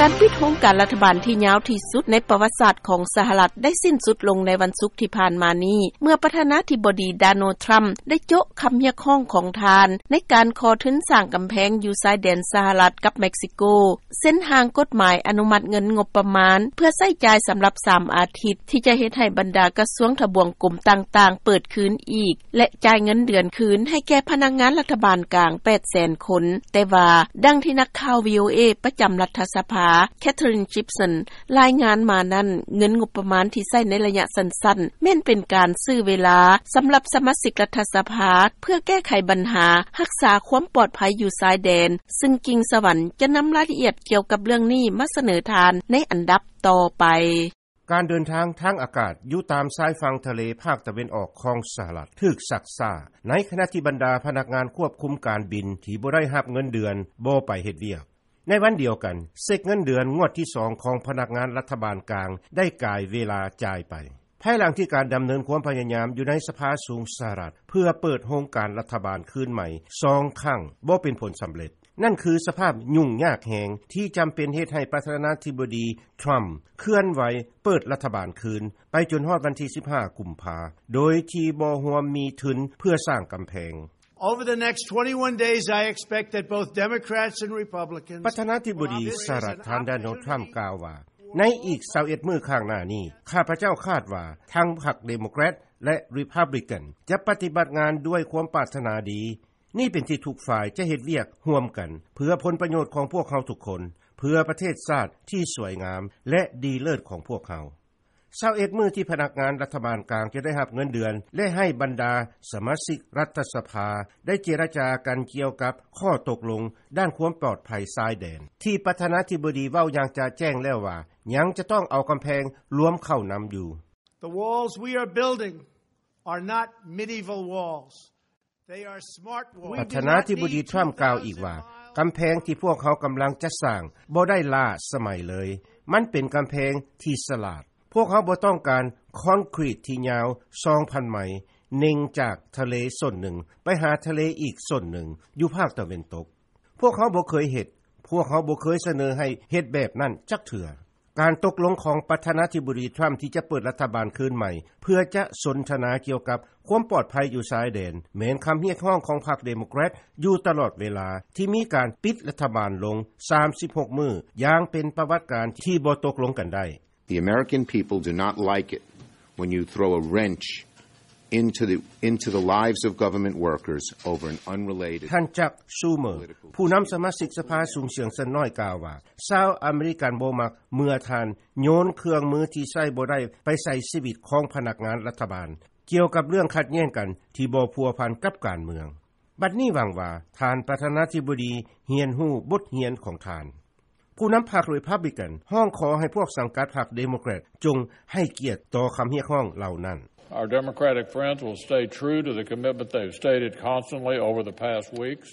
ການປິດໂຮງການລັດຖະບານທີ່ຍາວທີ່ສຸດໃນປະຫວັດສາດຂອງສະຫະລັດ ໄດ້ສິ້ນສຸດລົງໃນວັນສຸກທີ່ຜ່ານມານີ້ ເມື່ອປະທານາທິບໍດີ ໂດນັລ ທຣຳ ໄດ້ໂຈະຄຳຮຽກຮ້ອງຂອງທ່ານ ໃນການຂໍທຶນສ້າງກຳແພງຢູ່ຊາຍແດນສະຫະລັດກັບເມັກຊິໂກ, ເຊັນຮ່າງກົດໝາຍອະນຸມັດເງິນງົບປະມານ ເພື່ອໃຊ້ຈ່າຍສຳລັບສາມອາທິດ ທີ່ຈະເຮັດໃຫ້ບັນດາກະຊວງທະບວງກົມຕ່າງໆເປີດຄືນອີກ ແລະ ຈ່າຍເງິນເດືອນຄືນໃຫ້ແກ່ພະນັກງານລັດຖະບານກາງ ແປດແສນຄົນ. ແຕ່ວ່າ ດັ່ງທີ່ນັກຂ່າວ ວີໂອເອ ປະຈຳລັດຖະສະພາ ແຄທຣິນ ຈິບສັນ ລາຍງານມານັ້ນ, ເງິນງົບປະມານທີ່ໃຊ້ໃນໄລຍະສັ້ນໆ ແມ່ນເປັນການຊື້ເວລາສຳລັບສະມາຊິກລັດຖະສະພາ ເພື່ອແກ້ໄຂບັນຫາຮັກສາຄວາມປອດໄພຢູ່ຊາຍແດນ, ຊຶ່ງກິ່ງສະຫວັນຈະນຳລາຍລະອຽດກ່ຽວກັບເລື່ອງນີ້ມາສະເໜີທ່ານໃນອັນດັບຕໍ່ໄປ. ການເດີນທາງທາງອາກາດຢູ່ຕາມຊາຍຝັ່ງທະເລພາກຕາເວັນອອກຂອງສະຫະລັດຖືກຊັກຊ້າ, ໃນຂະນະທີ່ບັນດາພະນັກງານຄວບຄຸມການບິນທີ່ບໍ່ໄດ້ຮັບເງິນເດືອນບໍ່ໄປເຮັດວຽກ. ໃນວັນດຽວກັນ, ເຊັກເງິນເດືອນງວດທີສອງຂອງພະນັກງານລັດຖະບານກາງໄດ້ກາຍເວລາຈ່າຍໄປ, ພາຍຫຼັງທີ່ການດຳເນີນຄວາມພະຍາຍາມຢູ່ໃນສະພາສູງສະຫະລັດ ເພື່ອເປີດໂຮງການລັດຖະບານຄືນໃໝ່ສອງຄັ້ງບໍ່ເປັນຜົນສຳເລັດ. ນັ້ນຄືສະພາບຫຍຸ້ງຍາກແຮງທີ່ຈຳເປັນເຮັດໃຫ້ປະທານາທິບໍດີທຣຳເຄື່ອນໄຫວເປີດລັດຖະບານຄືນໄປຈົນຮອດວັນທີສິບຫ້າ ກຸມພາ ໂດຍທີ່ບໍ່ຮວມມີທຶນເພື່ອສ້າງກຳແພງ. Over the next twenty-one days, I expect that both Democrats and Republicans ປະທານາທິບໍດີສະຫະລັດ ທ່ານ ໂດນັລ ທຣຳ ກ່າວວ່າ, ໃນອີກຊາວເອັດມື້ຂ້າງໜ້ານີ້, ຂ້າພະເຈົ້າຄາດວ່າທັງພັກເດໂມແຄຣດ ແລະ ຣີພັບບລິກັນ ຈະປະຕິບັດງານດ້ວຍຄວາມປາດຖະໜາດີ. ນີ້ເປັນທີ່ທຸກຝ່າຍຈະເຮັດວຽກຮ່ວມກັນ ເພື່ອຜົນປະໂຫຍດຂອງພວກເຮົາທຸກຄົນ, ເພື່ອປະເທດຊາດທີ່ສວຍງາມ ແລະ ດີເລີດຂອງພວກເຮົາ. ຊາວເອັດມື້ທີ່ພະນັກງານລັດຖະບານກາງຈະໄດ້ຮັບເງິນເດືອນ ແລະ ໃຫ້ບັນດາສະມາຊິກລັດຖະສະພາໄດ້ເຈລະຈາກັນກ່ຽວກັບຂໍ້ຕົກລົງດ້ານຄວາມປອດໄພຊາຍແດນ ທີ່ປະທານາທິບໍດີເວົ້າຢ່າງຈະແຈ້ງແລ້ວວ່າ ຍັງຈະຕ້ອງເອົາກຳແພງລວມເຂົ້ານຳຢູ່. The walls we are building are not medieval walls. They are smart walls. ປະທານາທິບໍດີທຣຳກ່າວອີກວ່າ, ກຳແພງທີ່ພວກເຮົາກຳລັງຈະສ້າງບໍ່ໄດ້ລ້າສະໄໝເລີຍ. ມັນເປັນກຳແພງທີ່ສະຫຼາດ. ພວກເຮົາບໍ່ຕ້ອງການຄອນກຣີດທີ່ຍາວສອງພັນໄມ, ເນັ່ງຈາກທະເລສ່ວນໜຶ່ງໄປຫາທະເລອີກສ່ວນໜຶ່ງຢູ່ພາກຕາເວັນຕົກ. ພວກເຮົາບໍ່ເຄີຍເຮັດ, ພວກເຮົາບໍ່ເຄີຍສະເໜີໃຫ້ເຮັດແບບນັ້ນຈັກເທື່ອ. ການຕົກລົງຂອງປະທານາທິບໍດີທຣຳທີ່ຈະເປີດລັດຖະບານຄືນໃໝ່ ເພື່ອຈະສົນທະນາກ່ຽວກັບຄວາມປອດໄພຢູ່ຊາຍແດນ ແມ່ນຄຳຮຽກຮ້ອງຂອງພັກເດໂມແຄຣດຢູ່ຕະຫຼອດເວລາ ທີ່ມີການປິດລັດຖະບານລົງສາມສິບຫົກມື້ ຢ່າງເປັນປະຫວັດການທີ່ບໍ່ຕົກລົງກັນໄດ້. The American people do not like it when you throw a wrench into the, into the lives of government workers over an unrelated ທ່ານ ຈັກ ຊູເມີ ຜູ້ນຳສະມາຊິກສະພາສູງສຽງສ່ວນນ້ອຍກ່າວວ່າ, ຊາວອາເມລິກັນບໍ່ມັກເມື່ອທ່ານໂຍນເຄື່ອງມືທີ່ໃຊ້ບໍ່ໄດ້ໄປໃສ່ຊີວິດຂອງພະນັກງານລັດຖະບານ ກ່ຽວກັບເລື່ອງຂັດແຍ່ງກັນທີ່ບໍ່ພົວພັນກັບການເມືອງ. ບັດນີ້ຫວັງວ່າທ່ານປະທານາທິບໍດີຮຽນຮູ້ບົດຮຽນຂອງທ່ານ. ຜູ້ນຳພັກຣີພັບບລິກັນຮ້ອງຂໍໃຫ້ພວກສັງກັດພັກເດໂມແຄຣດຈົ່ງໃຫ້ກຽດຕໍ່ຄຳຮຽກຮ້ອງເຫຼົ່ານັ້ນ. Our Democratic friends will stay true to the commitment they've stated constantly over the past weeks.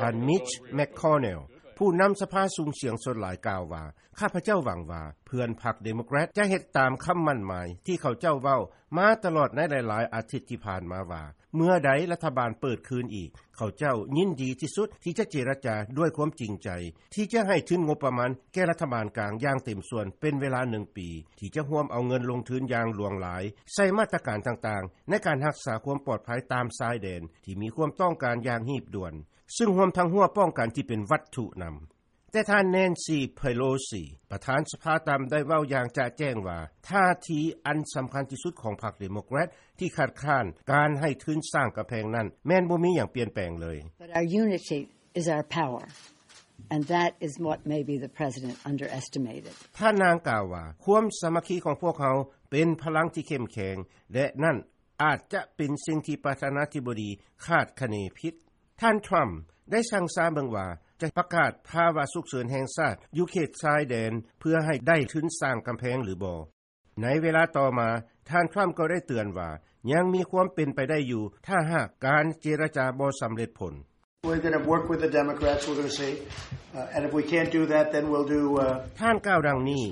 ທ່ານ ມິດຊ ແມັກຄອນເນລ ຜູ້ນຳສະພາສູງສຽງສ່ວນຫຼາຍກ່າວວ່າ, ຂ້າພະເຈົ້າຫວັງວ່າເພື່ອນພັກເດໂມແຄຣດຈະເຮັດຕາມຄຳໝັ້ນໝາຍທີ່ເຂົາເຈົ້າເວົ້າມາຕະຫຼອດໃນຫຼາຍໆອາທິດທີ່ຜ່ານມາວ່າ ເມື່ອໃດລັດຖະບານເປີດຄືນອີກ, ເຂົາເຈົ້າຍິນດີທີ່ສຸດທີ່ຈະເຈລະຈາດ້ວຍຄວາມຈິງໃຈ ທີ່ຈະໃຫ້ທຶນງົບປະມານແກ່ລັດຖະບານກາງຢ່າງເຕັມສ່ວນເປັນເວລາໜຶ່ງປີ, ທີ່ຈະຮ່ວມເອົາເງິນລົງທຶນຢ່າງຫຼວງຫຼາຍໃສ່ມາດຕະການຕ່າງໆ ໃນການຮັກສາຄວາມປອດໄພຕາມຊາຍແດນທີ່ມີຄວາມຕ້ອງການຢ່າງຮີບດ່ວນ, ຊຶ່ງຮວມທັງຮົ້ວປ້ອງກັນທີ່ເປັນວັດຖຸນຳ. ແຕ່ທ່ານ ແນນຊີ ເພໂລຊີ ປະທານສະພາຕ່ຳ ໄດ້ເວົ້າຢ່າງຈະແຈ້ງວ່າ ທ່າທີອັນສຳຄັນທີ່ສຸດຂອງພັກເດໂມແຄຣດທີ່ຄັດຄ້ານການໃຫ້ທຶນສ້າງກຳແພງນັ້ນ ແມ່ນບໍ່ມີຫຍັງປ່ຽນແປງເລີຍ. But our unity is our power, and that is what maybe the president underestimated. ທ່ານນາງກ່າວວ່າ, ຄວາມສາມັກຄີຂອງພວກເຮົາເປັນພະລັງທີ່ເຂັ້ມແຂງ ແລະ ນັ້ນອາດຈະເປັນສິ່ງທີ່ປະທານາທິບໍດີຄາດຄະເນຜິດ. ທ່ານທຣຳໄດ້ສັ່ງຊາເບິ່ງວ່າຈະປະກາດພາວະສຸກເສີນແຫ່ງຊາດຢູ່ເຂດຊາຍແດນເພື່ອໃຫ້ໄດ້ທຶນສ້າງກຳແພງຫຼືບໍ່. ໃນເວລາຕໍ່ມາ, ທ່ານທຣຳກໍໄດ້ເຕືອນວ່າຍັງມີຄວາມເປັນໄປໄດ້ຢູ່ ຖ້າຫາກການເຈລະຈາບໍ່ສຳເລັດຜົນ. We're gonna work with the Democrats, we're gonna see. Uh, and if we can't do that, then we'll do, uh, ທ່ານກ່າວດັ່ງນີ້,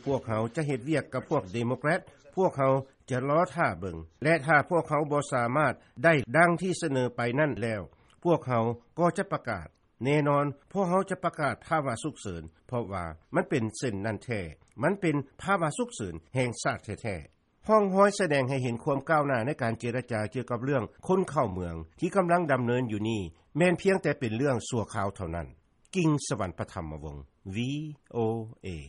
ພວກເຮົາຈະເຮັດວຽກກັບພວກເດໂມແຄຣດ, ພວກເຮົາຈະລໍຖ້າເບິ່ງ ແລະ ຖ້າພວກເຮົາບໍ່ສາມາດໄດ້ດັ່ງທີ່ສະເໜີໄປນັ້ນແລ້ວ, ພວກເຮົາກໍຈະປະກາດ. ແນ່ນອນ ພວກເຮົາຈະປະກາດພາວະສຸກເສີນ ເພາະວ່າມັນເປັນເຊັ່ນນັ້ນແທ້. ມັນເປັນພາວະສຸກເສີນແຫ່ງຊາດແທ້ໆ. ຮ່ອງຮອຍສະແດງໃຫ້ເຫັນຄວາມກ້າວໜ້າໃນການເຈລະຈາກ່ຽວກັບເລື່ອງຄົນເຂົ້າເມືອງທີ່ກຳລັງດຳເນີນຢູ່ນີ້ ແມ່ນພຽງແຕ່ເປັນເລື່ອງຊົ່ວຄາວເທົ່ານັ້ນ. ກິງ ສະຫວັນປະທຳມະວົງ ວີໂອເອ